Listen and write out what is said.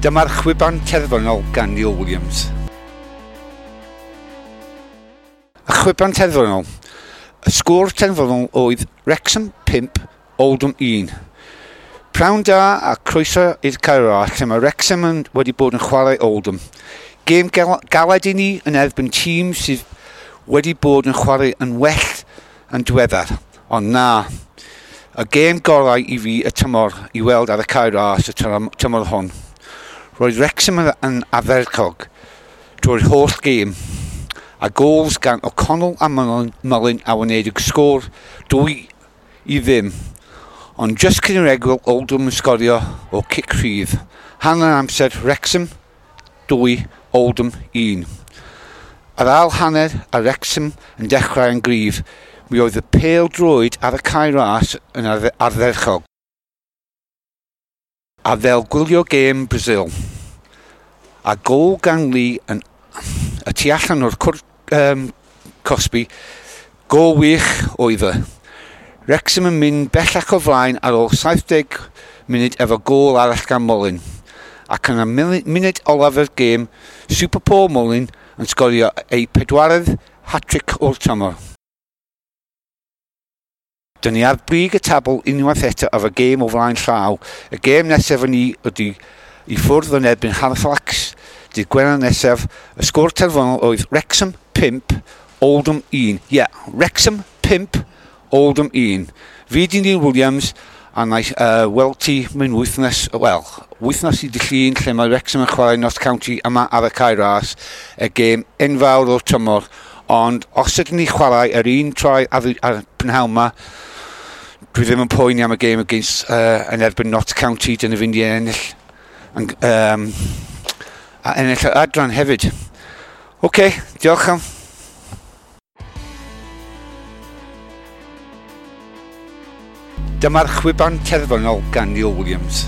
Dyma'r chwiban terfynol gan Neil Williams. Y chwiban terfynol. Y sgôr terfynol oedd Wrexham 5, Oldham 1. Prawn da a croeso i'r Caerau lle mae Wrexham wedi bod yn chwarae Oldham. Gêm galed i ni yn erbyn tîm sydd wedi bod yn chwarae yn well yn diweddar. Ond na, y gêm gorau i fi y tymor i weld ar y Cae Ras y tymor hwn. Roedd Wrexham yn ardderchog drwy'r holl gêm, a gols gan O'Connell a Mullin a wneud y sgôr 2-0. Ond just cyn yr egwyl, Oldham yn sgorio o cic rhydd. Hanner amser Wrexham 2, Oldham 1. Ar ail hanner a Wrexham yn dechrau yn gryf, mi oedd y pêl droed ar y Cae Ras yn ardderchog. A fel gwylio gêm Brazil. A gôl gan Lee yn y tu allan o'r cwrt cosbi, gôl wych oedd e. Wrexham yn mynd bellach o flaen ar ôl 70 munud efo gôl arall gan Mullin. Ac yn y munud olaf yr gêm, Super Paul Mullin yn sgorio ei pedwaredd hat-trick o'r tymor. Dyn ni ar brig y tabl unwaith eto efo gêm o flaen llaw. Y gêm nesaf yn ni ydy i ffwrdd yn erbyn Halifax. Dydd Gwener nesaf, y sgôr terfynol oedd Wrexham 5, Oldham 1. Ie, yeah, Wrexham 5, Oldham 1. Fi di Neil Williams, a na i weld ti mewn wythnos, wel, wythnos i dy Llun, lle mae Wrexham yn chwarae Notts County yma ar y Cae Ras, y gêm enfawr o'r tymor. Ond os ydyn ni chwarae yr un trai ar y prynhawn yma, dwi ddim yn poeni am y gêm against, yn erbyn Notts County, dyn ni fynd i ennill, a ennill yr adran hefyd. OK, diolch am. Dyma'r chwiban terfynol gan Neil Williams.